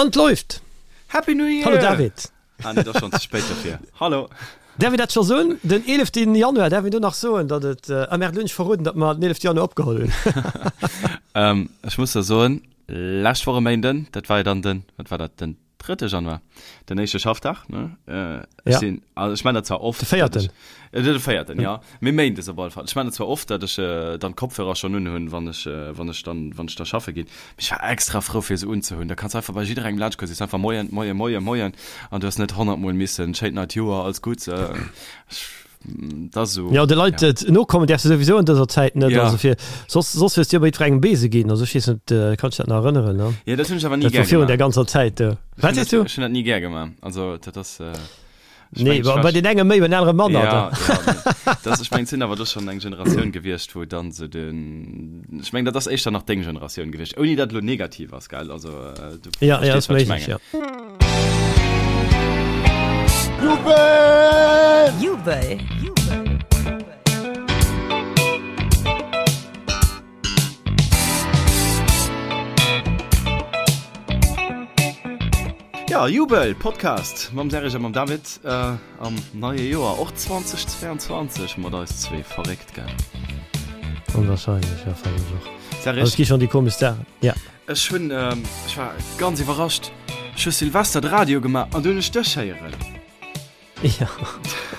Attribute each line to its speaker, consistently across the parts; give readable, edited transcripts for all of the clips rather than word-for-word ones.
Speaker 1: An 't läuft!
Speaker 2: Happy New Year!
Speaker 1: Hallo David!
Speaker 2: Ah nee, et ass schonn ze spéit dofir. Hallo!
Speaker 1: Däerf een dat scho soen? Den 11. Januar, däerf een do nach soen, datt et, ah merde, lo hunn ech verroden, datt mer den 11. Januar opgeholl
Speaker 2: hunn. Ech muss der soen, lescht Woch e Méinden, dat war jo dann den, wat war dat, den drëtte Januar, den éischte Schaffdag, ne? Ech
Speaker 1: Ja.
Speaker 2: sinn, also ech man dat zwar oft,
Speaker 1: De véierten.
Speaker 2: ech, de véierten, ja, mee méindes op alle Fall. Ech man dat zwar oft, datt ech dann d'Kopfhörer schonn unhunn, wann ech, wann ech dann, wann ech da schaffe ginn, mee ech war extra frou fir se unzehunn. Da kanns du einfach bei jidderengem laanscht goen, sees einfach Moien, Moien, Moien, Moien an du hues net honnertmol missen schéint neit Joer, alles Gutts, ech, dat ass esou,
Speaker 1: Jo, de Leit
Speaker 2: ja.
Speaker 1: et nokommen däerfs de souwisou an dëser Zäit net,
Speaker 2: Ja.
Speaker 1: also fir, soss, soss hues du jo bei jiddwerengem Beese ginn, also ech weess net, kanns dech dat nach erënneren, ne?
Speaker 2: Jo, dat hunn ech awer ni
Speaker 1: Dat war
Speaker 2: gär
Speaker 1: virun där
Speaker 2: gemaach.
Speaker 1: ganzer Zäit do.
Speaker 2: Ech
Speaker 1: Wat
Speaker 2: hunn
Speaker 1: sees
Speaker 2: dat,
Speaker 1: du?
Speaker 2: ech hunn dat ni gär gemaach, also dat ass.
Speaker 1: Ich nee, mein, bei den enge méi, bei den anere manner.
Speaker 2: Ja, ja, das, ich mein, sinn awer do schon eng Generatioun gewiescht, wou dann so den ich mein, dat ass éischter nach deng Generatioun gewiescht, ouni dat lo negativ ass, gell? Also, äh, du
Speaker 1: ja, ja,
Speaker 2: verstees,
Speaker 1: ass
Speaker 2: wat ich
Speaker 1: méiglech,
Speaker 2: mengen.
Speaker 1: ja.
Speaker 3: Jubel!
Speaker 4: Jubel!
Speaker 2: Ja, Jubel Podcast mam Serge a mam David äh, am neie Joer och 2022 mat eis zwee verréckt gell.
Speaker 1: Onwahrscheinlech, ja fannen ech och.
Speaker 2: Serge,
Speaker 1: Also, et gi schon déi komesch Saachen. Ja.
Speaker 2: ech hunn ähm, ech war ganz iwwerrascht. Ech hu Silvester de Radio gemaach an du hunn ech dech héieren.
Speaker 1: Ja.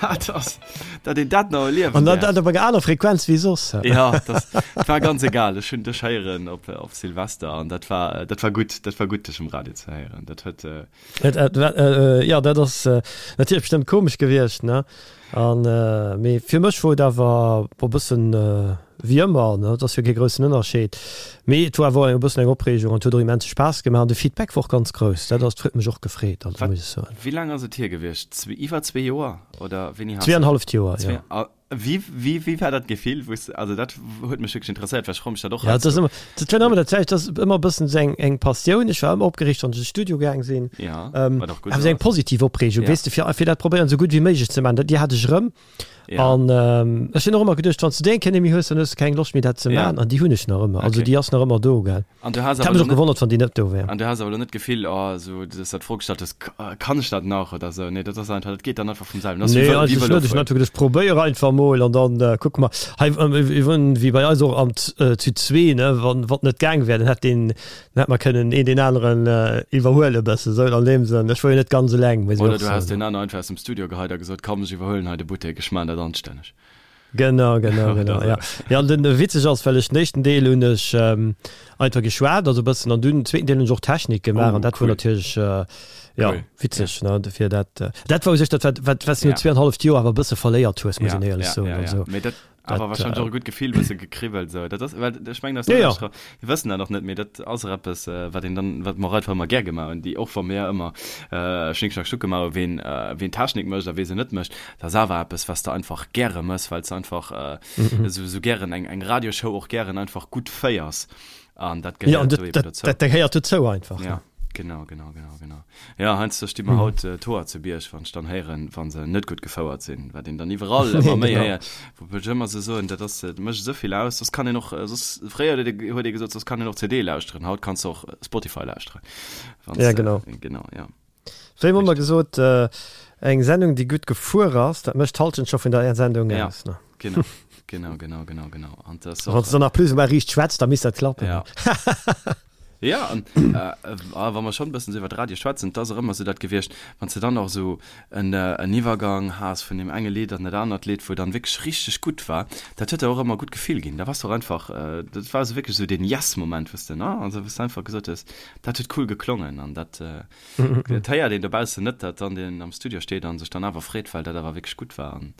Speaker 2: Dat ass, dat een dat nach erliewen
Speaker 1: An dat,
Speaker 2: däerf.
Speaker 1: dat op enger aner Frequenz wéi soss.
Speaker 2: Ja, das war ganz egal. Ech hunn dech héieren op, op Silvester an dat war, dat war gutt, dat war gutt dech um Radio ze héieren. Dat huet, äh,
Speaker 1: Et, et, äh, äh, ja, dat ass äh, natierlech bestëmmt komesch gewiescht, ne? An, äh, mee fir mech wor et awer e bëssen äh, wéi ëmmer, ne? Et ass jo kee groussen Ënnerscheed. Mee et war awer och e bëssen eng Opreegung an et huet och immense Spaass gemaach an de Feedback war och ganz grouss. Dat ass, huet mech och gefreet, also
Speaker 2: wat,
Speaker 1: muss ech soen.
Speaker 2: wéi laang ass et hier gewiescht? Zwee, iwwer zwee Joer oder wéini has de?
Speaker 1: Zweeanenhalleft Joer,
Speaker 2: Zwee,
Speaker 1: jo.
Speaker 2: a wéi, wéi, wéi war dat Gefill, wou s de, also dat huet mech wierklech interesséiert, well ech froe mech dat och
Speaker 1: Ja, et ass
Speaker 2: heiansdo.
Speaker 1: ëmmer, dat war ëmmer dat selwecht, dat ass ëmmer e bëssen esou eng, eng Passioun. Ech war ëmmer opgereegt, wann ech an de Studio gaang sinn.
Speaker 2: Ja,
Speaker 1: Ähm,
Speaker 2: wat och gutt
Speaker 1: awer esou eng
Speaker 2: ass.
Speaker 1: positiv Opreegung,
Speaker 2: Ja.
Speaker 1: weess de, fir, fir dat probéieren esou gutt wéi méiglech ze maachen. Dat, déi hat ech erëm.
Speaker 2: Ja.
Speaker 1: An ähm, ech hunn och ëmmer geduecht, wann s du déi eng Kéier net méi hues, dann hues du keng Loscht méi dat ze
Speaker 2: Ja.
Speaker 1: maachen. An déi hunn ech nach ëmmer. Also
Speaker 2: Okay.
Speaker 1: déi ass nach ëmmer do, gell.
Speaker 2: An du has
Speaker 1: Et hätt
Speaker 2: awer
Speaker 1: mech
Speaker 2: lo
Speaker 1: och
Speaker 2: net,
Speaker 1: gewonnert, wann déi net do wär.
Speaker 2: an du has awer lo net d'Gefill, oh, esou, dass du dat d'Fro gestallt hues, Kann ech dat nach oder esou? Nee, dat ass einfach, dat geet dann einfach vum selwen. Dat ass wéi
Speaker 1: Nee,
Speaker 2: Vëlo, wéi
Speaker 1: eigentlech net. Ech hunn
Speaker 2: Vëlofueren.
Speaker 1: einfach geduecht, probéier einfach mol an dann äh, kucke mer. Hei, ähm, wéi bei eis och am Z äh, zu zwee, ne, wann wann net gaang wär, dann hätt deen, dann hätt mer kënnen een deen aneren äh, iwwerhuele bëssen, esou an deem Sënn. Ech wor jo net ganz eleng, muss ech
Speaker 2: Oder
Speaker 1: och
Speaker 2: du has
Speaker 1: soen.
Speaker 2: deen aner einfach aus dem Studio geheit a gesot, Komm, ech iwwerhuelen hei de Buttek, ech maan dat anstänneg.
Speaker 1: Genau, genau,
Speaker 2: Oder
Speaker 1: genau,
Speaker 2: esou.
Speaker 1: ja. Ja, an den witzeg ass, well ech den éischten Deel hunn ech ähm, einfach geschwat, also e bëssen, an dunn den zweeten Deel hunn ech och Technik gemaach
Speaker 2: Oh,
Speaker 1: an dat wor
Speaker 2: cool.
Speaker 1: natierlech äh, ja,
Speaker 2: Cool.
Speaker 1: witzeg, ne, dofir dat äh, dat war u sech dat, wat, wat, wat s du no
Speaker 2: Ja.
Speaker 1: zweeanhalleft Joer awer e bësse verléiert hues, muss
Speaker 2: Ja,
Speaker 1: een éierlech
Speaker 2: ja,
Speaker 1: soen,
Speaker 2: ja, ja.
Speaker 1: also.
Speaker 2: Mee dat awer
Speaker 1: Dat,
Speaker 2: wahrscheinlech
Speaker 1: äh,
Speaker 2: och e gutt Gefill, bësse gekribbelt esou. Dat ass, well ech mengen, dat
Speaker 1: Ja, ja.
Speaker 2: ass mir wëssen dat nach net, mee dat ass och eppes, äh, wat een dann, wat mer och einfach ëmmer gär gemaach hunn, déi och wa mir ëmmer äh, Schnick Schnack Schnuck gemaach hunn, ween, äh, ween Technik mécht a wee se net mécht, dat ass awer eppes, wat s de einfach gäre méchs, well s de einfach äh, esou, esou gären eng, eng Radioshow och gären einfach gutt féiers. An dat
Speaker 1: Ja, an
Speaker 2: gehéiert
Speaker 1: dat,
Speaker 2: do eben
Speaker 1: dat,
Speaker 2: dozou.
Speaker 1: dat gehéiert dozou einfach,
Speaker 2: Ja.
Speaker 1: ne?
Speaker 2: Genau, genau, genau, genau. Ja, heiansdo sti mer haut d'Hoer zu Bierg, wann ech dann héieren, wa se net gutt gefouert sinn, wat een dann iwwerall ëmmer méi
Speaker 1: Genau.
Speaker 2: héiert, wou ech ëmmer sou soen, dat ass, dat mécht esou vill aus, soss kann een och, soss, fréier huet ee, huet ee gesot, soss kann een och CD lauschteren, haut kanns de och Spotify lauschteren, wann
Speaker 1: Ja,
Speaker 2: s de,
Speaker 1: genau.
Speaker 2: genau, ja.
Speaker 1: Wéi hu mer
Speaker 2: Richtig.
Speaker 1: gesot, eng Sendung, déi gutt gefuer ass, dat mécht d'Halschent scho vun der Sendung
Speaker 2: Ja,
Speaker 1: aus, ne?
Speaker 2: genau, genau, genau, genau, genau. An dat ass
Speaker 1: Wann
Speaker 2: och,
Speaker 1: s de dann nach plus ou moins riicht schwätzt, da misst dat klappen.
Speaker 2: Ja. Ja, an wa mer schonn e bëssen esou iwwer Radio schwätzen, et ass och ëmmer esou dat gewiescht, wann s de dann och esou en en Iwwergang has vun deem enge Lidd an dat anert Lidd, wou dann wierklech richteg gutt war, dat huet der och ëmmer e gutt Gefill ginn. Da waars de och einfach, dat war esou wierklech esou deen Yes-Moment, wou s de, ne, also wou s de einfach gesot hues, dat huet cool geklongen an dat, dat héiert een dobaussen net, datt dann deen am Studio steet a sech dann awer freet, well dat awer wierklech gutt war an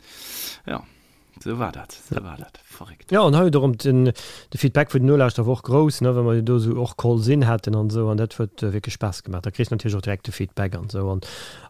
Speaker 2: jo. Sou war dat, sou war dat. Verréckt.
Speaker 1: Jo, an hei huet och erëm den, de Feedback vun den Nolauschterer war och grouss, ne, well mer jo do esou och Calls in haten an esou, an dat huet wierklech Spaass gemaach. Da kriss de natierlech och direkt de Feedback an esou an,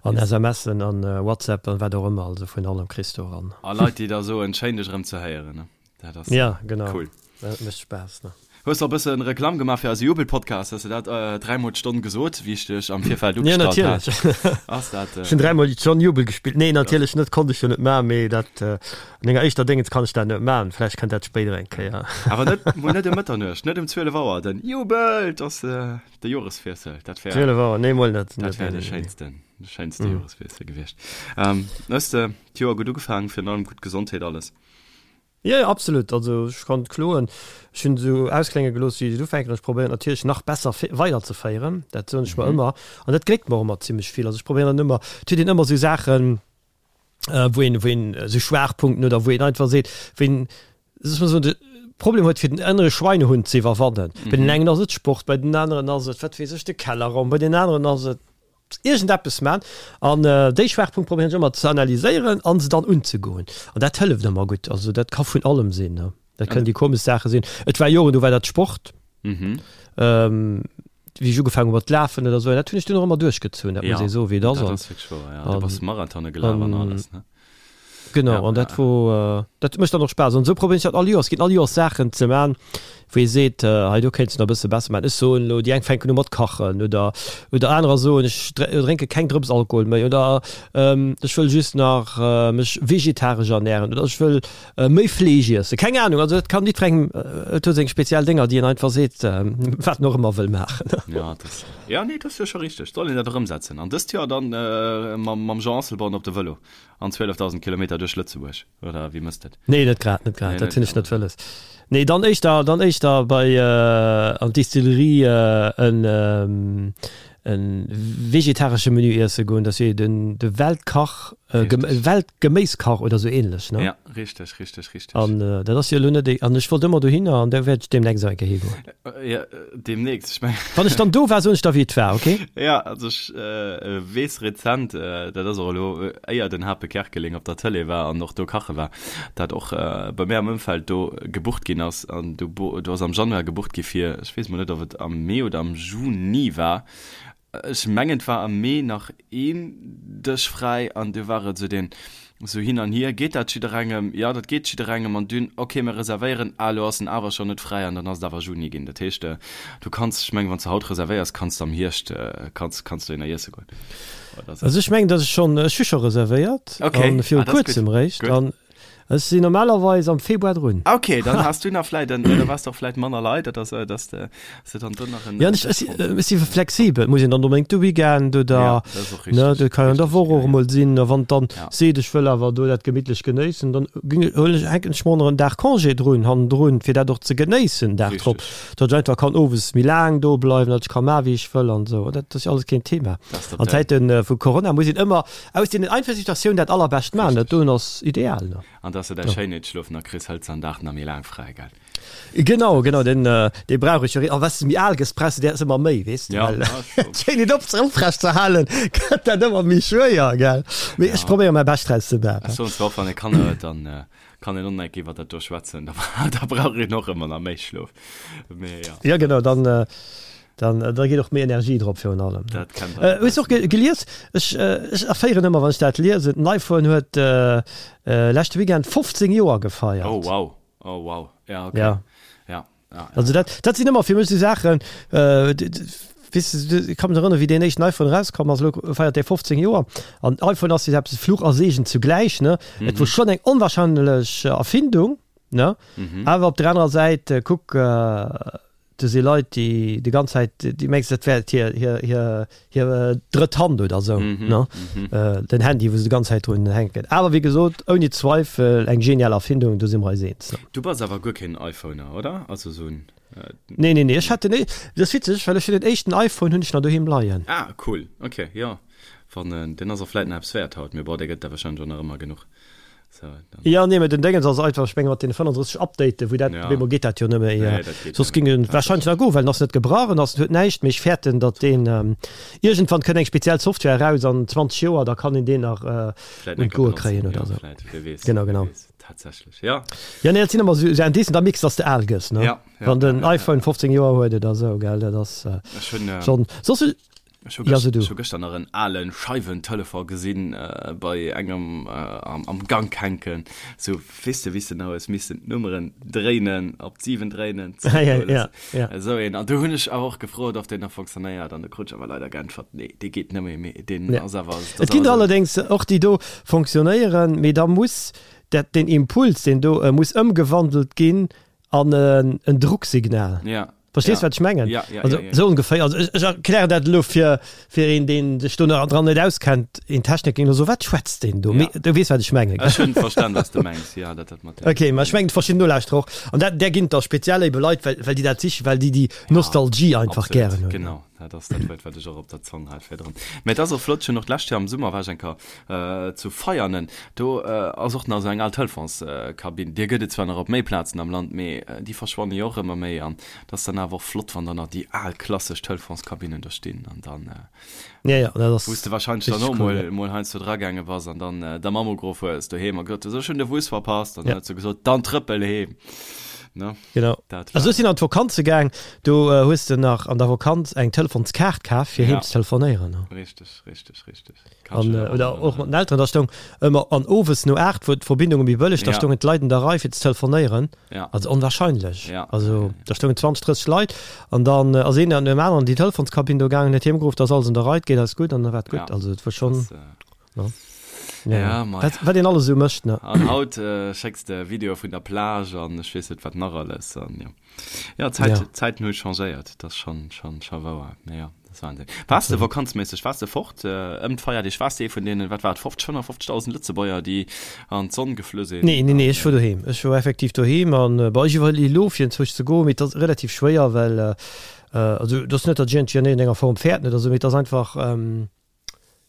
Speaker 1: an
Speaker 2: Yes.
Speaker 1: SMSen an WhatsApp an wat och ëmmer, also vun allem kriss de och an.
Speaker 2: A Leit, déi da soen, schéin dech erëm ze héieren, ne. Dat ass
Speaker 1: Ja, genau.
Speaker 2: cool.
Speaker 1: Dat mécht Spaass, ne.
Speaker 2: Hues de och e bësse Reklamm gemaach fir eise Jubel-Podcast? Hues de dat dräimol d'Stonn gesot, wéi ech dech am Virfeld
Speaker 1: Ja,
Speaker 2: ugestallt hat?
Speaker 1: natierlech.
Speaker 2: Ass dat.
Speaker 1: Ech hunn dräimol d'Stonn Jubel gespillt. Nee, natierlech net, konnt ech jo net maachen, mee dat an enger éischter Déngens kann ech dat net maachen. Vläicht kënnt dat spéider eng Kéier.
Speaker 2: Awer net, mol net ëm Mëtternuecht, net ëm 12 Auer, den Jubel! 't ass de Joreswiessel, dat wär.
Speaker 1: 12 Auer, nee, mol net.
Speaker 2: Dat wär de schéinsten, de schéinste Joreswiessel gewiescht. Hues de d'Joer gutt ugefaangen, virun allem gutt Gesondheet, alles?
Speaker 1: Jo, jo, absolut. Also ech kann net kloen. Ech hunn esou ausklénge gelooss, wéi ech et ufänken. Ech probéieren natierlech nach besser weiderzeféieren. Dat soen ech mer ëmmer. An dat gléckt mer och ëmmer zimmlech vill. Also ech probéieren dann ëmmer, et huet een ëmmer esou Saachen, wou een, wou een esou Schwaachpunkten oder wou een einfach seet, wou een, soss mol soen, de Problem huet fir den ënnere Schweinehund ze iwwerwannen. Bei den engen ass et Sport, bei den aneren ass et, wat weess ech, de Kellerraum, bei den aneren ass et iergendeppes man. An déi Schwaachpunkt probéieren ech ëmmer ze analyséieren an se dann unzegoen. An dat hëlleft ëmmer gutt. Also dat ka vun allem sinn, ne. Dat kënnen déi komesch Saache sinn. Et war Joren, do war dat Sport. Wéi ech ugefaangen hu mat lafen oder esou. Dat hunn ech dunn och ëmmer duerchgezunn, dat muss ee soen, wéi et ass.
Speaker 2: Dat ass wierklech wouer, jo. Du bass Marathone gelaf an alles, ne?
Speaker 1: Genau, ja, an dat wor, äh, dat mécht dann och Spaass. An esou probéieren ech dat all Joers. Et ginn all Joers Saachen ze man, wou ee seet, äh, hei do kéints de nach e bësse besser man. Ech soen elo, déi eng fänken u mat kachen oder, oder anerer soen, ech drénke keng Drëps Alkohol méi oder ähm, ech wëll just nach äh, mech vegetaresch ernähren oder ech wëll äh, méi Fleesch iessen. Keng Ahnung, also dat kann jiddwerengem, äh, et huet seng speziell Dénger, déi een einfach seet, äh, wat en och ëmmer wëll maachen.
Speaker 2: Ja, dat, ja, nee, dat ass jo scho richteg. Soll een dat och ëmsetzen. An dëst Joer dann äh, mam, mam Jean Asselborn op de Vëlo. An 12.000 Kilometer duerch Lëtzebuerg, oder wéi mësst et?
Speaker 1: Nee, net grad, net grad, dat hunn ech net wëlles. Nee, dann éischter, dann éischter bei an d'Distillerie en e vegetaresche Menü iesse goen, dat ass jo den de Weltkach, Weltgeméiskach oder sou ähnlech, ne?
Speaker 2: Ja, richteg, richteg, richteg.
Speaker 1: An dat ass jo elo net, an ech wollt ëmmer dohinner an da wäert ech deemnächst och eng Kéier higoen.
Speaker 2: Ja, deemnächst, ech mengen.
Speaker 1: Wann ech dann do war, soen ech der, wéi et war, okay?
Speaker 2: Ja, also ech weess rezent, dat ass och elo, éier den Hape Kerkeling op der Tëlee war an och do kache war, dat och bei mär am Ëmfeld do gebucht ginn ass. An do do ass am Januar gebucht gi fir, ech weess mol net, ob et am Mee oder am Juni war, Ech mengen et war am Mee nach een Dësch fräi an du war et sou deen sou hin an hier, geet dat jidderengem? Jo dat geet jidderengem an dunn ok mir reservéieren, ah elo ass en awer schonn net fräi an dann ass et awer Juni ginn. Dat heescht du kanns, ech mengen wann s de haut reservéiers kanns de am Hierscht kanns kanns dohinner iesse goen.
Speaker 1: Also ech mengen datt ech schonn, ech hu scho reservéiert an viru kuerzem réischt an Ech sinn normalerweis am Februar drun.
Speaker 2: Ok, dann has du nach vläit en, da wars de och vläit manner Leit, dat ass, dass de, dass de dann do nach en.
Speaker 1: Ja, ech, ech, ech si flexibel, muss een dann onbedéngt de Weekend oder, ja, dat ass och richtig, ne, dat kann an der Woch och emol sinn, a wann dann ja. seet, ech wëll awer do dat gemittlech genéissen, dann ging, huelen ech, hänken ech mer och nach en Dag Congé drun, hannendrun, fir dat och ze genéissen, Dag drop, datt ech einfach kann owes méi laang do bleiwen, datt ech ka maachen, wéi ech wëll an esou, dat ass jo alles keen Thema. An Zäite vu Corona muss een ëmmer Aus deenen einfache Situatiounen dat allerbescht maachen, dat doen ass ideal, ne?
Speaker 2: An dass de däi Schéinheetsschlof nach kriss, hëls de an Dag nach méi laang fräi, gell?
Speaker 1: Genau, genau, den, dee brauch ech jo. A wat s de méi al gëss, brauchs de där ëmmer méi, weess de, well d'Schéinheet op, oprecht ze halen, gëtt dat ëmmer méi schwéier, gell? Mee ech probéiere mäi Bescht draus ze maachen.
Speaker 2: Ech soen zwar och, wann ee Kanner huet, dann kann een och nach iwwer dat do schwätzen, da brauch een och ëmmer nach méi Schlof,
Speaker 1: mee jo. Jo, genau, dann Dann da geet och méi Energie drop virun allem.
Speaker 2: Dat kennt äh,
Speaker 1: Hues och ge gelies? Ech, äh, ech erféieren ëmmer wann ech dat liesen. Den iPhone huet äh, äh, leschte Weekend 15 Joer gefeiert.
Speaker 2: Oh wow, oh wow, ja okay.
Speaker 1: Ja.
Speaker 2: Ja, ja, ja.
Speaker 1: Also dat, dat sinn ëmmer fir mech sou Saachen, äh, weess de, ech ka mech erënneren, wéi deen éischten iPhone erauskomm ass, elo feiert dee 15 Joer. An iPhone ass jo eppes Fluch a Segen zugläich, ne? Mhm. Et wor schonn eng onwahrscheinlech Erfindung, ne? Mhm. Awer op der anerer Säit, kuck, äh, Do si Leit, déi déi ganz Zäit, déi mengs dat wär hir, hir, hir, hir drëtt Hand oder esou, ne? Den Handy, wou se déi ganz Zäit drun hänken. Awer wéi gesot, ouni Zweifel eng genial Erfindung, do si mer eis eens, ne?
Speaker 2: Du bass awer guer keen iPhoner, oder? Also esou en.
Speaker 1: Nee, nee, nee, ech hat den, dat ass witzeg, well ech hunn den éischten iPhone hunn ech nach doheem leien.
Speaker 2: Ah, cool, ok, jo. Wann, deen ass och vläit nach eppes wäert haut, mee bon, dee gëtt der warscheinlech och nach ëmmer genuch.
Speaker 1: So, ja nee, den Dingens ass einfach ech menge mat den 35 Update wou dat ja. geet dat jo nëmme nee, soss ging en wahrscheinlich nach go well ass net gebrach en ass huet näischt méi fäerten dat den ähm, irgendwann kënnt eng speziell Software raus an 20 Joer da kann en den nach äh, un d'Goe kréien oder so
Speaker 2: genau genau tatsächlich ja
Speaker 1: ja nee, sinn immer so, so Indicen da mix dass de al gëss ne
Speaker 2: ja,
Speaker 1: ja, wann den ja, iPhone 15 Joer huet oder so gell dat ass
Speaker 2: äh,
Speaker 1: schon, äh, schon soss.
Speaker 2: Ech hu gëschter nach en ale Scheiwentelefon gesinn bei engem am Gank hänken. Sou, weess de, wéi s de nach hues missen d'Nummeren dréinen, op d'7 dréinen, zeréckhuelen. Esou een. An do hunn ech awer och gefrot, ob deen nach fonctionnéiert, an do krut ech awer leider geäntwert, nee, dee geet net méi, mee deen ass awer.
Speaker 1: Et ginn der allerdéngs och, déi do fonctionnéieren, mee da muss dat, deen Impuls, deen do muss ëmgewandelt ginn an en Drucksignal.
Speaker 2: Ja.
Speaker 1: Verstees
Speaker 2: ja.
Speaker 1: wat ech mengen?
Speaker 2: Ja, ja,
Speaker 1: also,
Speaker 2: ja, ja.
Speaker 1: Sou ongeféier. Also, ech, ech erklären dat elo fir, fir een, deen sech do nach dran net auskennt, een Techniker ging elo so, wat schwätzt deen do?
Speaker 2: Ja.
Speaker 1: Mee du weess wat ech mengen.
Speaker 2: Ech hunn verstan was du mengs, ja, dat dat mat dem.
Speaker 1: Okay, ma ech mengen verschidden Nolauschterer och. An dat, där ginn et da speziell ebe Leit, well, well déi dat sichen, well déi déi Nostalgie einfach
Speaker 2: Absolut,
Speaker 1: gären hunn.
Speaker 2: Genau, dat ass dat Wuert, wat ech och op der Zong hat virdrun. Mä et ass och flott, ech hunn och d'lescht Joer am Summer war ech eng Kéier Zu Veianen, do ass och nach esou eng al Telefonskabinn. Déi gëtt et zwar nach op méi Plazen am Land, mee déi verschwanne jo och ëmmer méi. An et ass dann awer och flott, wann dann nach déi al klassesch Telefonskabinnen do stinn. An dann, wou s de warscheinlech dann och mol, mol heiansdo dragaange bass an dann der Mamm ugeruff hues doheem a gesot hues, ech hunn de Bus verpasst. An dann huet se gesot, dann trëppel heem. Ne?
Speaker 1: Genau.
Speaker 2: Dat
Speaker 1: Also
Speaker 2: war.
Speaker 1: ech sinn an d'Vokanze gaang, do hues de nach an der Vokanz eng Telefonskaart kaf, fir heem
Speaker 2: Ja.
Speaker 1: ze telefonéieren.
Speaker 2: Richteg, richteg, richteg.
Speaker 1: An, oder och mat den Elteren, da stoung ëmmer, an owes no 8 wor d'Verbindung méi bëlleg, da stoungen d'Leit an der Rei fir ze telefonéieren. Also onwahrscheinlech. Also da stoungen 20, 30 Leit an dann ass een an deem aneren an déi Telefonskabinn do gaangen, huet hiem geruff, da ass alles an der Rei, et geet alles gutt an da war et gutt. Also et wor schonn, ne?
Speaker 2: Ja, mei.
Speaker 1: Wat, wat een alles esou mécht, ne?
Speaker 2: An haut schécks de Videoe vun der Plage an ech weess net wat nach alles an jo. Ja, d'Zäit,
Speaker 1: Ja.
Speaker 2: d'Zäiten hu changéiert, dat ass schonn, schonn, scho wouer. Mee jo, dat ass Wahnsinn. Waars de vakanzméisseg, waars de fort ëm d'Feierdeeg? Waars de ee vun deenen, wat war et, 50, 55.000 Lëtzebuerger, déi an d'Sonn geflu sinn?
Speaker 1: Nee, nee, nee, ech wor doheem. Ech wor effektiv doheem an, bon, ech iwwerleeë elo fir enzwousch ze goen, mee et ass relativ schwéier, well, also et ass net, datt ech iergendwéi an iergendenger Form fäerten oder esou, mee et ass einfach,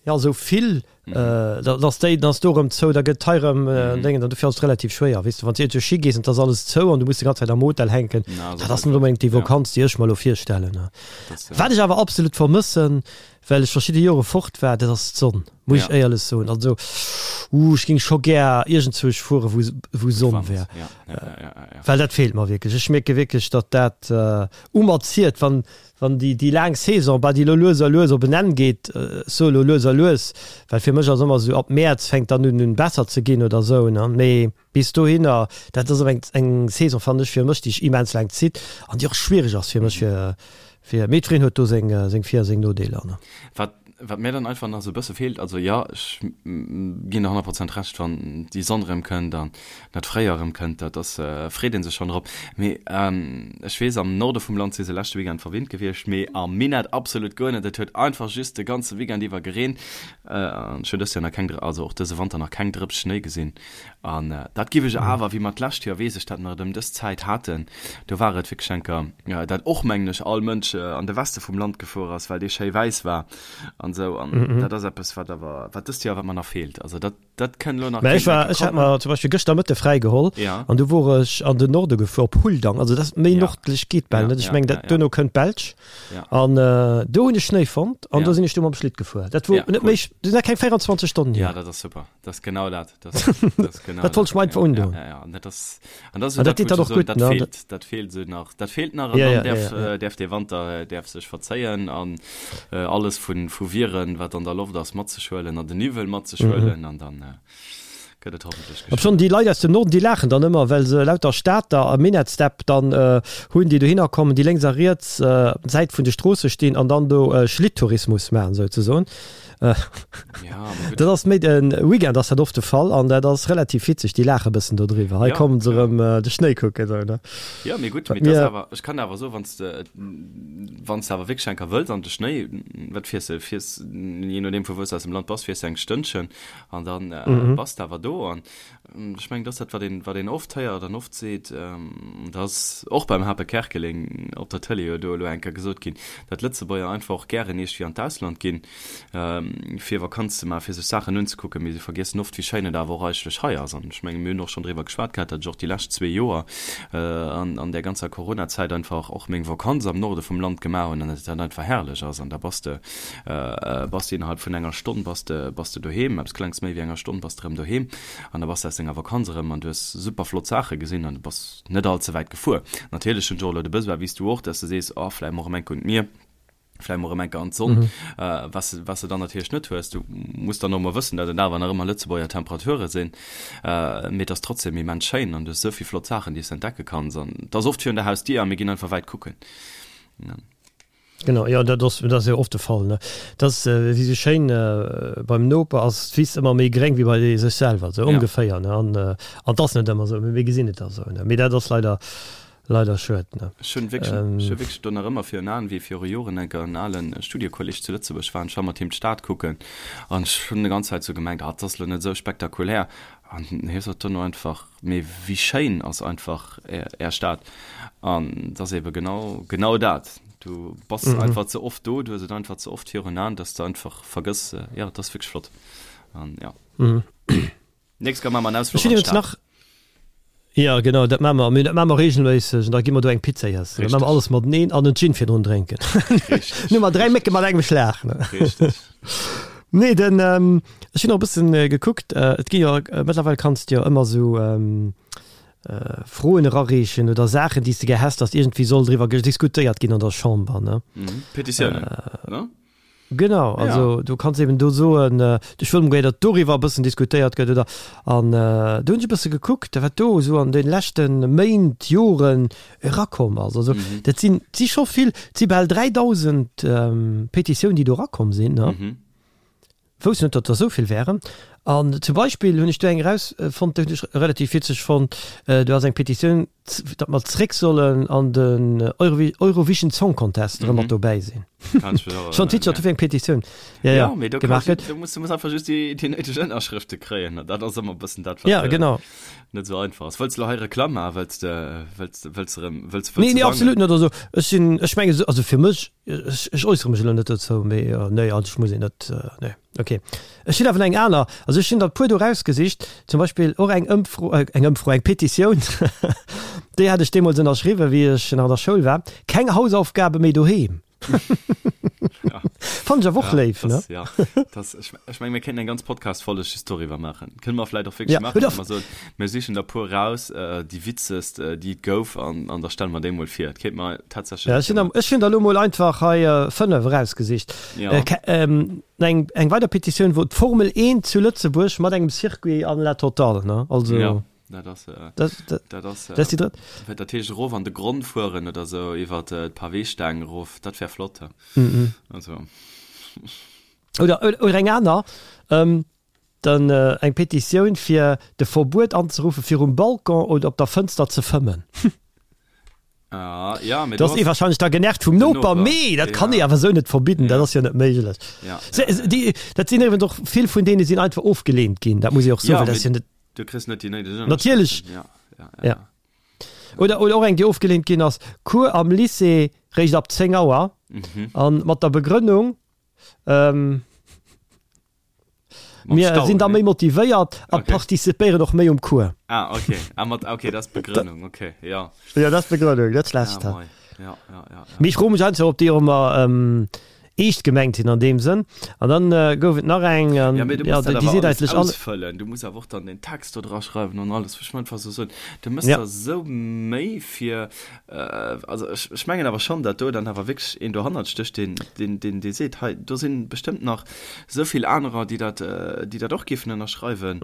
Speaker 1: Ja, esou vill, dann ass déi, dann ass do erëm zou, da gëtt hei erëm en Déngen, an dofir ass et relativ schwéier, weess de, wann s de iergendwou Schi gees an et ass alles zou an du muss déi ganz Zäit am Hotel hänken, dat ass net onbedéngt déi Vakanz, déi ech mer elo virstellen. Wat ech awer absolut vermëssen, well ech verschidde Jore fort war, dat ass d'Sonn, muss ech éierlech soen. Also, uh, ech géing scho gär iergendzwousch fuere wou, wou Sonn wär, well dat feelt mer wierklech. Ech mierke wierklech, datt dat u mer ziert, wann, Wann déi, déi laang Saison, bah, déi elo lues a lues op en Enn geet, ech soe elo lues a lues, well fir mech ass ëmmer esou, ab Mäerz fänkt dann un, un besser ze ginn oder esou, ne, mee bis dohinner, dat ass awer eng, eng Saison, fannen ech, fir mech, déi sech immens laang zitt an déi och schwiereg ass fir mech, fir, fir, mee jiddwereen huet do seng, seng Vir a seng Nodeeler, ne.
Speaker 2: Wat, wat mir dann einfach nach esou e bësse feelt, also jo, ech ginn der 100 Prozent Recht, wann déi Sonn erëm kënnt an dat Fréijoer erëm kënnt, dat ass, freet ee sech schonn drop. Mee ech weess, am Norde vum Land si se leschte Weekend verwinnt gewiescht, mee am Minett absolut guer net. Et huet einfach just de ganze Weekend iwwer gereent an ech hunn dëst Joer nach keng, also och dëse Wanter nach keng Drëps Schnéi gesinn. An dat giff ech awer, wéi mer d'lescht Joer, weess ech dat nach, et ëm dës Zäit haten, do war et wierklech enker, dat och, mengen ech, all Mënsch an de Weste vum Land gefuer ass, well dee schéi wäiss war an esou. An dat ass eppes, wat awer, wat dëst Joer, wat mer nach feelt. Also dat, dat kënn elo nach,
Speaker 1: Mä ech
Speaker 2: kéint
Speaker 1: war,
Speaker 2: enker
Speaker 1: ech hat
Speaker 2: kommen.
Speaker 1: mer zum Beispill gëschter Mëtte fräi geholl
Speaker 2: Ja.
Speaker 1: an du wor ech an den Norde gefuer, op Huldang. Also dat ass méi
Speaker 2: Ja.
Speaker 1: nordlech geet bal
Speaker 2: Ja,
Speaker 1: net. Ech
Speaker 2: ja,
Speaker 1: mengen,
Speaker 2: ja,
Speaker 1: dat
Speaker 2: ja.
Speaker 1: duerno kënnt d'Belsch.
Speaker 2: Ja.
Speaker 1: An do hunn ech Schnéi fonnt an
Speaker 2: Ja.
Speaker 1: do sinn ech du mam Schlitt gefuer. Dat wor
Speaker 2: Ja,
Speaker 1: net
Speaker 2: cool.
Speaker 1: méi, dat sinn nach keng 24 Stonnen
Speaker 2: Ja,
Speaker 1: hier.
Speaker 2: dat ass super. Dat ass genau dat. Dat ass genau
Speaker 1: Dat wollt ech mer einfach
Speaker 2: ja,
Speaker 1: undoen.
Speaker 2: ja, ja, ja. An dat ass, an dat ass
Speaker 1: An dat
Speaker 2: dat,
Speaker 1: deet dann
Speaker 2: wou
Speaker 1: och
Speaker 2: ech so,
Speaker 1: gutt,
Speaker 2: dat
Speaker 1: ne?
Speaker 2: feelt, dat feelt esou nach. Dat feelt nach an
Speaker 1: Ja,
Speaker 2: dann
Speaker 1: ja,
Speaker 2: däerf,
Speaker 1: ja, ja.
Speaker 2: äh, däerf dee Wanter äh, däerf sech verzéien an äh, alles vun, vu Viren, wat an der Loft ass, mat sech huelen an den Niwwel mat sech huelen an dann äh, gëtt et hoffentlech
Speaker 1: Ob schonn
Speaker 2: geschwënn.
Speaker 1: déi Leit aus dem Norden, déi laachen dann ëmmer, well se lauter Stater a Minettsdepp dann äh, hunn, déi dohinner kommen, déi lénks a riets äh, op Säit vun de Stroosse stinn an dann do äh, Schlitttourismus maachen, souzesoen. Dat ass méi den Weekend ass dat oft de Fall an dat ass relativ witzeg, déi laache bëssen do driwwer. Hei kommen se erëm de Schnéi kucken esou ne.
Speaker 2: Jo mee gutt, mee dat ass awer, ech kann awer soen, wann s de wann s de awer wierklech enker wëlls an de Schnéi, wat fiers de, fiers jee nodeem vu wou s de aus dem Land bass, fiers de eng Stënnchen an dann bass de awer do an Ech mengen, dat ass dat, wat een, wat een oft héiert an oft seet, dat ass och beim Hape Kerkeling op der Tëlee jo do elo eng Kéier gesot ginn, datt Lëtzebuerger einfach och gären iergendwéi an d'Ausland ginn, fir Vakanz ze maachen, fir sech Saachen unzekucken, mee se vergiessen oft, wéi schéin et awer och eigentlech hei ass. An ech mengen, mir hunn och schonn driwwer geschwat gehat, datt ech och déi lescht zwee Joer an, an där ganzer Coronazäit einfach och meng Vakanz am Norde vum Land gemaach hunn an datt dat einfach herrlech ass. An da bass de Bass de innerhalb vun enger Stonn bass de bass de doheem, eppes klengs méi wéi enger Stonn bass de erëm doheem an da bass de aus denger Vakanz erëm an du hues super flott Saache gesinn an du bass net all ze wäit gefuer. Natierlech hunn ech och elo de Besoin, wéi s du och, dass de sees, oh vläicht mol erëm eng Kéier un d'Mier. Vläicht mol erëm eng Kéier an d'Sonn, was de, was de dann natierlech net hues. Du muss dann och emol wëssen, datt et awer nach ëmmer Lëtzebuerger Temperature sinn, mee et ass trotzdem immens schéin an du hues esou vill flott Saachen, déi s de entdecke kanns an et ass oft virun der Hausdier a mir ginn einfach wäit kucken.
Speaker 1: Genau, jo, dat ass, dat ass jo oft de Fall, ne? Dat ass wéi esou schéin, beim Noper ass d'Wiss ëmmer méi gréng wéi bei sech selwer, esou ongeféier, ne? An, an 't ass net ëmmer esou, mee mir gesinn et da esou, ne? Mee dat ass leider, Leider schued, ne?
Speaker 2: Ech hunn wierklech, ech hu wierklech do nach ëmmer virun Aen, wéi viru Joren enker en alen Studiekolleg zu Lëtzebuerg war an ech war mat him d'Stad kucken an ech hunn déi ganz Zäit sou gemengt, ah, 't ass lo net esou spektakulär an hie sot dono einfach, mee wéi schéin ass einfach är, är Stad an 't ass ebe genau, genau dat, du bass einfach ze oft do, du hues et einfach ze oft virun Aen, dass de einfach vergëss, jo, 't ass wierklech flott an jo. Nächst Kéier maache mer en Ausfluch an d'Stad.
Speaker 1: Jo, genau, dat maache mer. Mee dat maache mer reegelméisseg. An da gi mer do eng Pizza iessen. Da maache mer alles mateneen an en Gin virdrun drénken.
Speaker 2: Richteg.
Speaker 1: Hu mer 3 Mécke mat engem Schlag, ne?
Speaker 2: Richteg.
Speaker 1: Nee, den, ech hunn och e bëssen gekuckt, et gi jo, mëttlerweil kanns de jo ëmmer esou Froen erareechen oder Saachen, déi s de gär häss, datt iergendwéi soll driwwer diskutéiert ginn an der Chamber, ne?
Speaker 2: Petitiounen, ne?
Speaker 1: Genau, also du kanns eben do soen, ech wëll mol, datt doriwwer e bëssen diskutéiert gëtt oder an do hunn ech e bësse gekuckt, wat do esou an de leschte Méint, Joren erakomm ass. Also dat sinn, et si scho vill, et si bal 3.000 Petitiounen, déi do erakomm sinn, ne? Wousst net, datt der esou vill wären. An zum Beispill hunn ech do eng erausfonnt, déi hunn ech relativ witzeg fonnt, do ass eng Petitioun, datt mer zréck sollen an den Eurovision Song Contest erëm mat dobäi sinn. Schon Twitch hat eng Petitioun
Speaker 2: ja, ja, ja, du gemacht gëtt. Du musst, du musst einfach just déi, déi néideg Ënnerschrëfte kréien. Dat ass ëmmer bëssen dat, wat
Speaker 1: ja, genau.
Speaker 2: net sou einfach ass. Wëlls du hei Reklamm maachen? Wëlls de, wëlls de, wëlls de erëm, wëlls,
Speaker 1: wëlls Nee, nee, absolut net. Also ech sinn, ech menge, also fir mech, ech, ech äussere mech elo net dozou, mee nee, also ech muss een net, nee. Ok. Ech hunn awer eng aner, also ech hunn der e puer do rausgesicht, zum Beispill och eng Ëmfro, eng Ëmfro, eng Petitioun, déi hat ech deemools ënnerschriwwen, wéi ech nach an der Schoul war, Keng Hausaufgabe méi doheem.
Speaker 2: Ja.
Speaker 1: Fannen ech awer och
Speaker 2: Ja,
Speaker 1: léif, ne?
Speaker 2: das, ja, das, ech, ech meng, mir kéinten eng ganz Podcast-Folleg just doriwwer maachen. Kënne mer vläicht och wierklech
Speaker 1: Ja,
Speaker 2: maachen,
Speaker 1: oder
Speaker 2: dass mer soen, mir sichen der puer raus, déi witzegst, déi et gouf, an, an da stelle mer déi mol vir. Dat kéinte mer tatsächlech
Speaker 1: Ja, ech hunn, ech hunn der elo mol einfach hei 5 erausgesicht.
Speaker 2: Ja.
Speaker 1: Eng, eng weider Petitioun wor d'Formel 1 zu Lëtzebuerg mat engem Circuit an la totale, ne? Also.
Speaker 2: Ja, dat ass,
Speaker 1: dat, dat,
Speaker 2: dat ass,
Speaker 1: dat ass déi drëtt.
Speaker 2: Wat dat heescht, erof an de Gronn fueren oder sou, iwwer d'Paweestaang erof, dat wär flott, he? Also.
Speaker 1: Oder, oder eng aner, dann eng Petitioun fir de Verbuet anzeruffen, fir um Balcon oder op der Fënster ze fëmmen.
Speaker 2: Ah, ja,
Speaker 1: mee do ass ee wahrscheinlech da genervt vum Noper, mee dat kann ee awer esou net verbidden, dat ass jo net méiglech.
Speaker 2: Ja,
Speaker 1: ja, ja. Déi, dat sinn iwwregens och vill vun deene sinn einfach ofgeleent ginn, dat muss ee och soen, well dat ass jo net.
Speaker 2: Du kriss net déi néideg
Speaker 1: Ënnerschrëften. Natierlech.
Speaker 2: Ja, ja, ja.
Speaker 1: Ja. Oder, oder och eng, déi ofgeleent ginn ass, Cours am Lycée réischt ab 10 Auer an mat der Begrënnung, ähm, Mir sinn da méi motivéiert a okay. participéieren och méi um Cours.
Speaker 2: Ah, okay. Ah, mat, okay, dat ass d'Begrënnung, okay,
Speaker 1: ja. Ja, dat ass d'Begrënnung, net schlecht.
Speaker 2: Ja, ja, ja, ja, ja.
Speaker 1: Mee ech froe mech einfach, ob déi och ëmmer ähm, eescht gemengt sinn an deem Sënn. An dann äh, gouf et nach eng,
Speaker 2: an, ja, mee du ja, musst dat déi seet eigentlech all. Ausfëllen. Du muss awer och dann den Text do dra schreiwen an alles. Ech einfach so soen, du mëss ja. der sou Méi fir Also ech, ech mengen awer schonn, datt do dann awer wierklech een dohannert stécht, deen, deen, deen, dee seet, hei do si bestëmmt nach esou vill anerer, déi dat, déi dat och géifen ënnerschreiwen.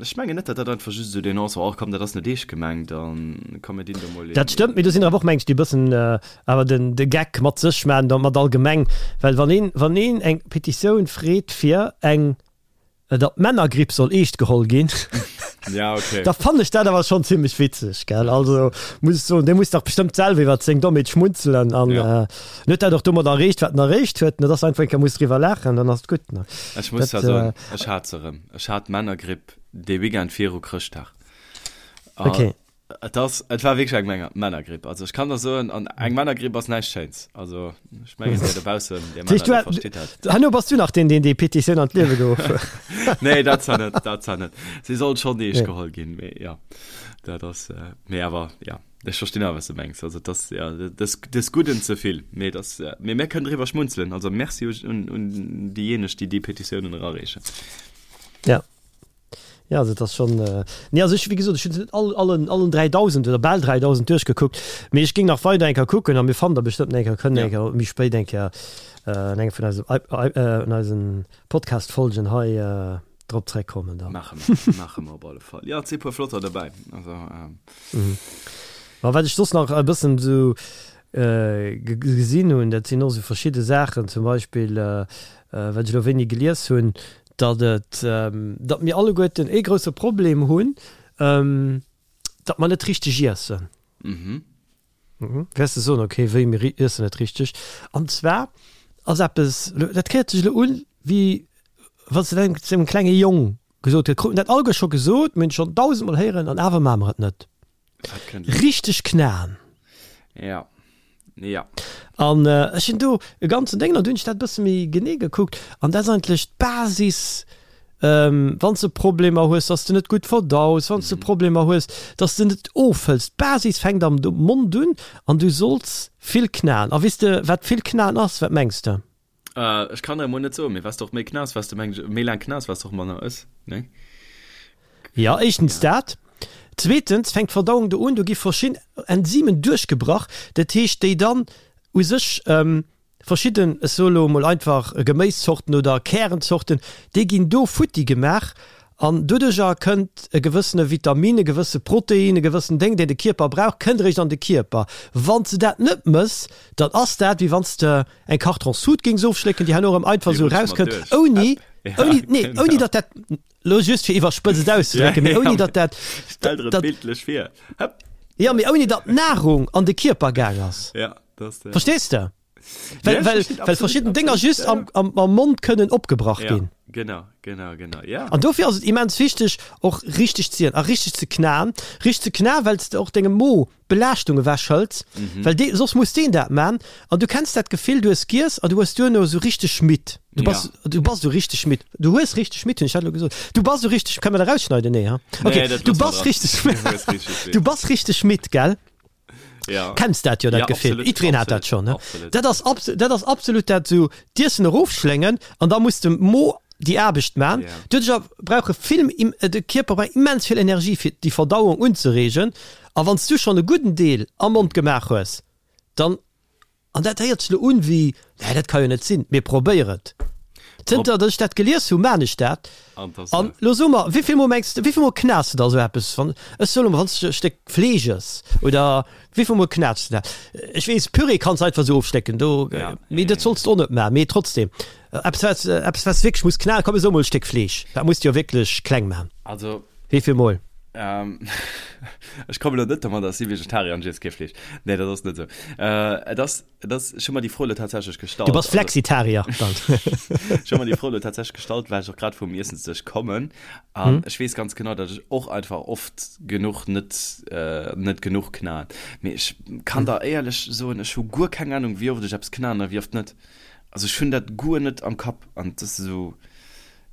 Speaker 2: Ech mengen net, datt dat einfach just esou deen ass, oh komm, dat ass net eescht gemengt an komm mir dinn do mol een.
Speaker 1: Dat stëmmt, mee do sinn der awer och, meng ech, déi e bëssen awer den, de Geck mat sech maachen, da mat allgemeng. Well wann een, wann een eng Petitioun freet fir eng datt d'Männergripp soll eescht geholl ginn,
Speaker 2: ja, okay.
Speaker 1: da fannen ech dat awer schonn zimmlech witzeg, gell? Also muss ech soen, dee muss dach bestëmmt selwer iwwer seng Dommheet schmunzelen an
Speaker 2: ja.
Speaker 1: äh, huet dat och domat erreecht, wat en erreecht huet, ne? Dass einfach eng Kéier muss driwwer laachen, dann ass et gutt, ne?
Speaker 2: Ech muss
Speaker 1: Dat,
Speaker 2: zwar soen,
Speaker 1: äh,
Speaker 2: ech hat se erëm. Ech hat d'Männergripp dee Weekend viru Chrëschtdag. A
Speaker 1: okay.
Speaker 2: Et ass, et war wierklech eng Männer, Männergripp. Also ech kann der soen, an eng Männergripp ass näischt Schéins. Also ech mengen, dir dobaussen, dir Männer, dir versteet
Speaker 1: dat. Herno bass du nach deen, deen déi Petitioun an d'Liewe geruff huet.
Speaker 2: Nee, dat zwar net, dat zwar net. Si soll schonn eescht geholl ginn, mee jo, dat ass, mee awer, ja, ech verstinn awer, wat s de mengs. Also et ass, ja, des, des Gudden ze vill. Mee et ass, mee mir kënnen driwwer schmunzelen. Also Merci un, un déijéineg, déi déi Petitiounen erareechen.
Speaker 1: Ja. Ja, also dat ass schonn, nee, also ech, wéi gesot, ech hunn se net all, allen, allen 3.000 oder bal 3.000 duerchgekuckt, mee ech géing nach weider eng Kéier kucken a mir fannen der bestëmmt eng Kéier, kënnen eng Kéier méi spéit eng Kéier an engem vun eise, an eisen Podcast-Folgen hei drop zréckkommen
Speaker 2: dann. Maache mer, maache mer op alle Fall. Jo, et si puer flotter dobäi, also.
Speaker 1: Ma wat ech soss nach e bëssen esou gesinn hunn, dat sinn och esou verschidde Saachen, zum Beispill, wat ech elo wéini gelies hunn, datt et, datt mir alleguerten ee grousse Problem hunn, datt mer net richteg iessen.
Speaker 2: Mhm.
Speaker 1: Wäers de soen, okay, wéi, mir iessen net richteg? An zwar ass eppes, dat héiert sech elo un, wéi wann s de dat engem klenge Jong gesot huet, kruten dat alleguer scho gesot, mir hunn et schonn dausendmol héieren an awer maache mer et net. Richteg knaen.
Speaker 2: Ja. Ja.
Speaker 1: An ech hunn do e ganzen Déngen, an du hunn ech dat e bësse méi genee gekuckt, an dat ass eigentlech d'Basis, wann s de Problemer hues, dass de net gutt verdaus, wann s de Problemer hues, dass de net ofhëls. D'Basis fänkt am Mond un an du solls vill knaen. A weess de, wat vill knaen ass? Wat mengs de?
Speaker 2: Ech kann der emol net soen, mee wat s de och méi knass, wat s de meng ech, méi laang knass, wat s de och manner ëss, nee?
Speaker 1: Jo, éischtens dat. Zweetens fänkt d'Verdauung do un, do gi verschidden Enzymen duerchgebrach, dat heescht déi dann u sech verschidden, ech soe lo emol einfach Geméiszorten oder Kärenzorten, déi ginn do futti gemaach an doduercher kënnt e gewëssene Vitamin, e gewësse Protein, e gewëssen Déng, deen de Kierper brauch, kënnt eréischt an de Kierper. Wann s de dat net mëss, dann ass dat wéi wann s de eng Karton-Sud géings ofschlécken, déi herno erëm einfach esou erauskënnt, ouni, ouni, nee, ouni datt dat, lo just fir iwwerspëtzt et auszedrécken, mee ouni datt dat,
Speaker 2: Stell der et bildlech vir.
Speaker 1: Hëpp. Jo, mee ouni datt d'Nahrung an de Kierper gaang ass.
Speaker 2: Ja, dat ass
Speaker 1: de. Verstees de? Well, well, well verschidden Dénger just am, am, am Mond kënnen opgebrach ginn.
Speaker 2: Genau, genau, genau, ja.
Speaker 1: An dofir ass et immens wichteg, och richteg ze ieren a richteg ze knaen. Richteg ze knaen, well s de och dengem Mo Belaaschtung ewech hëls, well dee, soss muss deen dat man an du kenns dat Gefill, du hues giess an du hues duerno esou richteg midd, du bass, du bass esou richteg midd, du hues richteg midd, hunn ech dat elo gesot? Du bass esou richteg, kann mer dat erausschneiden? Nee, ha? Okay,
Speaker 2: Nee, dat
Speaker 1: du
Speaker 2: loosse mer
Speaker 1: bass
Speaker 2: dran.
Speaker 1: richteg,
Speaker 2: Du hues richteg midd.
Speaker 1: du bass richteg midd, gell?
Speaker 2: Ja.
Speaker 1: Kenns dat jo, dat
Speaker 2: Ja,
Speaker 1: Gefill.
Speaker 2: absolut,
Speaker 1: Jiddwereen hat dat
Speaker 2: absolut,
Speaker 1: schonn, ne?
Speaker 2: absolut.
Speaker 1: Dat ass abs-, dat ass absolut dat, esou d'Iessen erofschléngen an da muss de Mo déi Aarbecht man.
Speaker 2: Ja.
Speaker 1: Doduercher brauche vill, de Kierper brauch immens vill Energie fir déi Verdauung unzereegen. A wann s du schonn e gudden Deel am Mond gemaach hues, dann, an dat héiert sech elo un wéi, nee dat ka jo net sinn, mee probéier et. Zënter datt ech dat gelies hu, maan ech dat. An elo so mer, wéivill mol mengs de, wéivill mol knaas de da esou eppes, wann, ech soe lo mol, wann s de e Stéck Fleesch ëss, oder wéivill mol knaats de dat? Ech weess, Püree kanns de einfach esou ofschlécken, do, mee dat solls de och net maachen, mee trotzdem, eppes wat, eppes wat s de wierklech muss knaen, komm ech soe mol e Stéck Fleesch, dat muss de jo wierklech kleng maachen.
Speaker 2: Also.
Speaker 1: Wéivill mol?
Speaker 2: Ähm, ech komme lo net domat, dass si Vegetarier an ech iess kee Fleesch. Nee, dat ass net esou. Äh, et ass, et ass, ech hu mer déi Fro elo tatsächlech gestallt.
Speaker 1: Du bass Flexitarier dann.
Speaker 2: Ech hu mer déi Fro elo tatsächlech gestallt, well ech och grad vum Iessensdësch kommen. An ech weess ganz genau, datt ech och einfach oft genuch net, äh, net genuch knaen. Mee ech kann der éierlech soen, ech hu guer keng Anung, wéi oft ech eppes knaen a wéi oft net. Also ech hunn dat guer net am Kapp an et ass esou.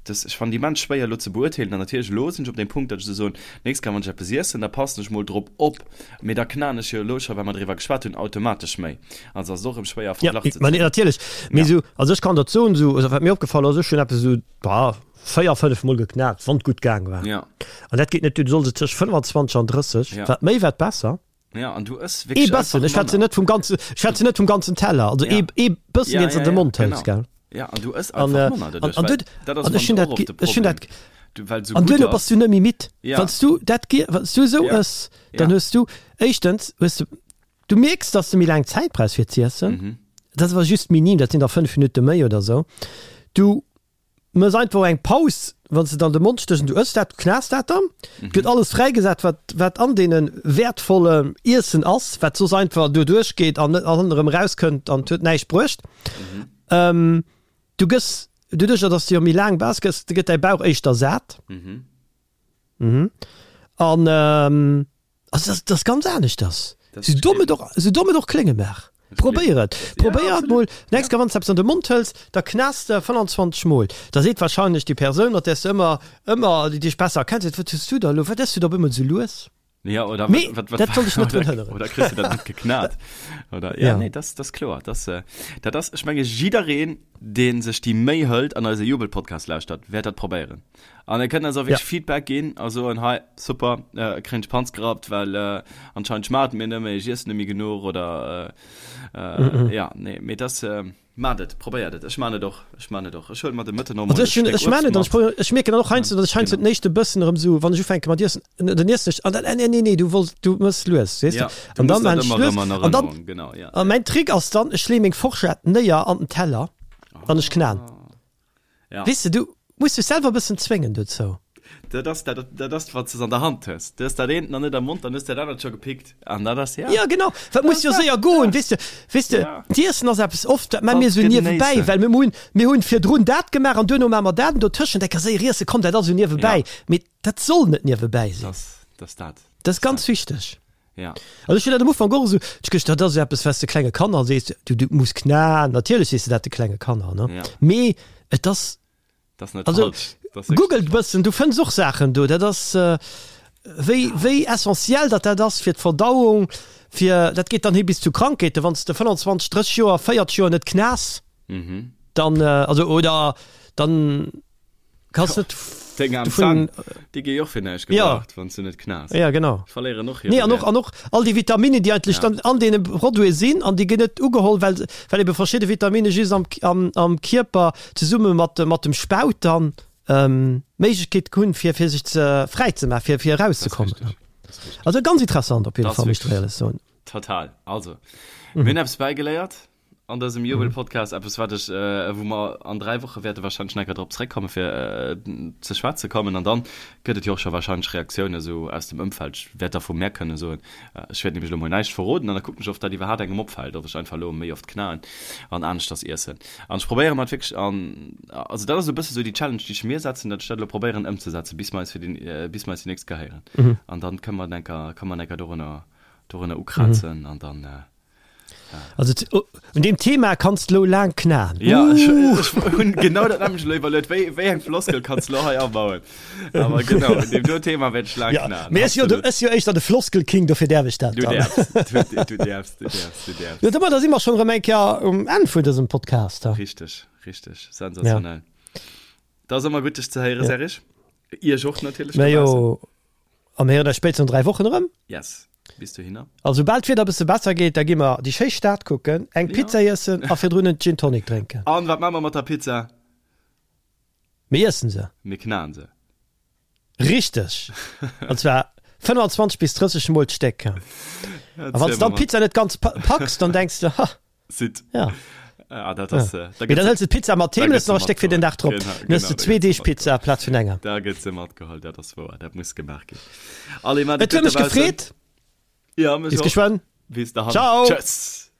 Speaker 2: Dass, ech fannen déi immens schwéier elo ze beurteelen an natierlech elo sinn ech op deem Punkt, datt ech esou soen, nächst Kéier wann ech eppes iessen, da passen ech mol drop op, mee da knaen ech jo elo scho, well mer driwwer geschwat hunn, automatesch méi. Also ass et och erëm schwéier a
Speaker 1: Ja,
Speaker 2: Verglach ze
Speaker 1: ma
Speaker 2: zéien.
Speaker 1: natierlech. Mee
Speaker 2: Ja.
Speaker 1: esou, also ech kann der soen, esou, also wat mir opgefall ass, ech hunn eppes esou, bah, 4, 5 mol geknat, wann et gutt gaang war.
Speaker 2: Ja.
Speaker 1: An dat geet net duer, du solls et tëscht 25 an 30,
Speaker 2: Ja.
Speaker 1: wat méi, wat besser.
Speaker 2: Ja, an du ëss
Speaker 1: Ee
Speaker 2: wierklech
Speaker 1: bëssen,
Speaker 2: einfach
Speaker 1: ech schwätzen
Speaker 2: manner.
Speaker 1: net vum ganzen, ech schwätzen net vum ganzen Teller, also
Speaker 2: Ja.
Speaker 1: ee, ee bëssen,
Speaker 2: Ja,
Speaker 1: deen s
Speaker 2: ja,
Speaker 1: an de
Speaker 2: ja,
Speaker 1: Mond hëls,
Speaker 2: genau.
Speaker 1: gell?
Speaker 2: Ja, an du ëss
Speaker 1: An,
Speaker 2: einfach
Speaker 1: äh,
Speaker 2: manner
Speaker 1: an,
Speaker 2: doduerch,
Speaker 1: an
Speaker 2: well
Speaker 1: du,
Speaker 2: dat ass
Speaker 1: an ech
Speaker 2: fannen
Speaker 1: hunn
Speaker 2: ech
Speaker 1: dat
Speaker 2: och
Speaker 1: ge,
Speaker 2: oft de
Speaker 1: ech hunn dat
Speaker 2: Problem. Du, well et sou
Speaker 1: An
Speaker 2: gutt
Speaker 1: duerno bass
Speaker 2: ass.
Speaker 1: du net méi midd.
Speaker 2: Ja.
Speaker 1: Wann s du dat ge, wann s du esou
Speaker 2: Ja.
Speaker 1: ëss, dann
Speaker 2: Ja.
Speaker 1: hues du, éischtens hues du, du mierks, dass du méi laang Zäit brauchs fir z'iessen,
Speaker 2: Mhm.
Speaker 1: dat ass awer just minim, dat sinn da 5 Minutte méi oder sou. Du Mëss einfach eng Paus, wann s de et an de Mond stéchs an du ëss dat, du knaas dat dann. Et gëtt alles fräigesat, wat, wat an deene wäertvollen Iessen ass, wat soss einfach doduerch geet an net an erëm erauskënnt an et huet näischt bruecht. Du gëss, doduercher dass de jo méi laang bass, gëss, gëtt däi Bauch éischter sat. An also dat, dat ass ganz aneschters. Sou domm et och, sou domm et och klénge mag. Probéier et. Probéier et mol. Nächst Kéier wann s de eppes an de Mond hëls, da knaas de 25 mol. Da seet wahrscheinlech déi Persoun, mat där s de ëmmer, ëmmer, déi dech besser kennt, seet, Wat hues du da elo, wat ëss du da op eemol esou lues?
Speaker 2: Ja, oder
Speaker 1: Mee wat, wat, dat soll dech net drun hënneren.
Speaker 2: Oder kriss du dat net geknat? Oder, ja, ja. nee, das, das kloer. Das, äh, dat ass, ech menge jiddereen, deen sech déi Méi hëlt an eise Jubel-Podcast lauschtert, wäert dat probéieren. An e kënnt eis och wierklech ja. Feedback ginn a soen, hei, super, äh, kréien ech Panz gerappt, well äh, anscheinend schmaacht mir net méi, ech iessen net méi genuch oder äh, äh, mm -mm. ja, nee, mee das, äh, Maacht et, probéiert et. Ech maan et och, ech maan et och. Ech huelen mer de Mëtten och mol
Speaker 1: e Stéck Uebst mat. Ech maan et an ech mierken dann och heiansdo, datt ech heiansdo den éischte Bëssen erëm esou, wann ech ufänke mat iessen, dann iessen ech an dann, nee, nee, nee, du wolls, du mëss lues, weess de.
Speaker 2: An dann maan ech lues an
Speaker 1: dann, a mäin Trick ass dann, ech lee meng Forschett néier an den Teller an ech knaen.
Speaker 2: Ja.
Speaker 1: Weess de, du muss dech selwer e bëssen zwéngen dozou.
Speaker 2: Dat ass dat, dat ass, wat s de an der Hand hues. Du hues dat eent nach net am Mond, dann hues de dat anert scho gepickt. An dat ass, ja.
Speaker 1: Ja, genau. Dat muss jo séier goen, weess de. Weess de,
Speaker 2: Ja.
Speaker 1: d'Iessen ass eppes, oft, dat maache mir
Speaker 2: Kannst
Speaker 1: esou niewebäi,
Speaker 2: genéissen.
Speaker 1: well mir hunn, mir hunn virdrun dat gemaach an duerno maache mer dat an dotëschent eng Kéier séier iessen, komm, dat ass esou niewebäi.
Speaker 2: Ja.
Speaker 1: Mee dat soll net niewebäi sinn.
Speaker 2: Dat ass, dat ass dat.
Speaker 1: Dat ass ganz wichteg.
Speaker 2: Ja.
Speaker 1: Also ech hunn dat am Ufank och esou, ech gëscht, dat ass eppes, wat s de klenge Kanner sees, du, du muss knaen, natierlech sees de dat de klenge Kanner, ne?
Speaker 2: Ja.
Speaker 1: Mee et ass,
Speaker 2: Dat ass net
Speaker 1: also
Speaker 2: falsch. Dat ass wierklech
Speaker 1: googelt
Speaker 2: net
Speaker 1: e bëssen, du fënns och Saachen do, dat ass wéi, wéi essentiell dat dat ass fir d'Verdauung, fir, dat geet dann hi bis zu Krankheeten, wann s de 25, 30 Joer, 40 Joer net knaas,
Speaker 2: Mhm.
Speaker 1: dann, also oder dann Kanns net
Speaker 2: Deng aarm Zänn, déi gi jo och fir näischt
Speaker 1: gebraucht,
Speaker 2: wann s du net knaas.
Speaker 1: Ja, genau.
Speaker 2: Verléieren och hire
Speaker 1: Nee, an och, an och all déi Vitaminen, déi eigentlech dann an deene Produite sinn, an déi ginn net ugeholl, well, well ebe verschidde Vitamine just am, am, am Kierper zesumme mat, mat dem Spaut dann d'Méiglechkeet hunn, fir, fir sech ze, fräi ze maachen, fir, fir
Speaker 2: Dat ass
Speaker 1: erauszekommen.
Speaker 2: richteg. Dat ass richteg.
Speaker 1: Also ganz interessant op jidde
Speaker 2: Dat ass
Speaker 1: Fall, muss ech der
Speaker 2: wierklech
Speaker 1: éierlech soen.
Speaker 2: total. Also, mir hunn eppes bäigeléiert. An dësem Jubel-Podcast, eppes wat ech, wou mer an 3 Woche wäerte wahrscheinlech nach eng Kéier drop zréckkommen, fir ze schwätze kommen. An dann gëtt et jo och scho wahrscheinlech Reaktiounen esou aus dem Ëmfeld. Ech wäert da vu mär kënne soen, ech wäert nämlech elo mol näischt verroden an da kucken ech, of dat iwwerhaapt engem opfält, ob ech einfach elo méi oft knaen an aneschters iessen. An ech probéiere mer et wierklech an, also dat ass esou e bësse sou déi Challenge, déi ech mir setzen, datt ech dat elo probéieren ëmzesetzen, bis mer eis fir déi, bis mer eis déi nächst Kéier héieren. An dann kënne mer eng Kéier, kënne mer eng Kéier dorunner, dorunner ukrazen an dann,
Speaker 1: Also un deem Thema kanns de lo laang knaen.
Speaker 2: Ja, ech, ech hunn genau dat nämlecht elo iwwerluet, wéi, wéi eng Floskel kanns de lo hei abauen? Awer genau, un deem do Thema wäert ech laang
Speaker 1: Ja,
Speaker 2: knaen.
Speaker 1: mee ech si jo de,
Speaker 2: Absolut.
Speaker 1: ech si jo éischter de Floskelking, dofir däerf ech dat
Speaker 2: Du
Speaker 1: dann.
Speaker 2: däerfs, du, du däerfs, du däerfs, du däerfs.
Speaker 1: Jo, domadder si mer schonn erëm eng Kéier um Enn vun dësem Podcast.
Speaker 2: Richteg, richteg, sensationell. Dat ass ëmmer gutt dech ze héieren,
Speaker 1: Ja.
Speaker 2: Serge. Iech och natierlech
Speaker 1: Mä
Speaker 2: dobaussen.
Speaker 1: jo, a mir héieren eis spéitstens an 3 Wochen erëm.
Speaker 2: Yes. Bis dohinner.
Speaker 1: A soubal d'Wieder e bësse besser gétt, da gi mer déi schéi Stad kucken, eng Pizza iessen a virdrun en Gin Tonic drénken.
Speaker 2: An wat maache mer mat der Pizza?
Speaker 1: Mir iessen se.
Speaker 2: Mir knaen se.
Speaker 1: Richteg! An zwar 25 bis 30 mol d'Stéck. A wann s de dann d'Pizza net ganz packs, dann denks de, Ha!
Speaker 2: Sit.
Speaker 1: Ja.
Speaker 2: Ah, dat ass,
Speaker 1: ja.
Speaker 2: äh, da
Speaker 1: Mee dann
Speaker 2: gëtt
Speaker 1: hëls de d'Pizza mat heem,
Speaker 2: da
Speaker 1: hues
Speaker 2: gëtt
Speaker 1: nach e
Speaker 2: se
Speaker 1: Stéck fir den Dag drop.
Speaker 2: Genau,
Speaker 1: Dann hues
Speaker 2: genau,
Speaker 1: de
Speaker 2: da
Speaker 1: zwee
Speaker 2: gëtt se
Speaker 1: Deeg Pizza
Speaker 2: matgeholl.
Speaker 1: amplaz vun enger.
Speaker 2: Da gëtt se matgeholl, dat ass wouer, dat muss gemaach ginn. Allez, maat
Speaker 1: Et
Speaker 2: et
Speaker 1: huet
Speaker 2: gutt
Speaker 1: mech
Speaker 2: dobaussen.
Speaker 1: gefreet.
Speaker 2: Ja, mech
Speaker 1: Bis
Speaker 2: och.
Speaker 1: geschwënn.
Speaker 2: Bis dahin.
Speaker 1: Ciao.
Speaker 2: Tschëss.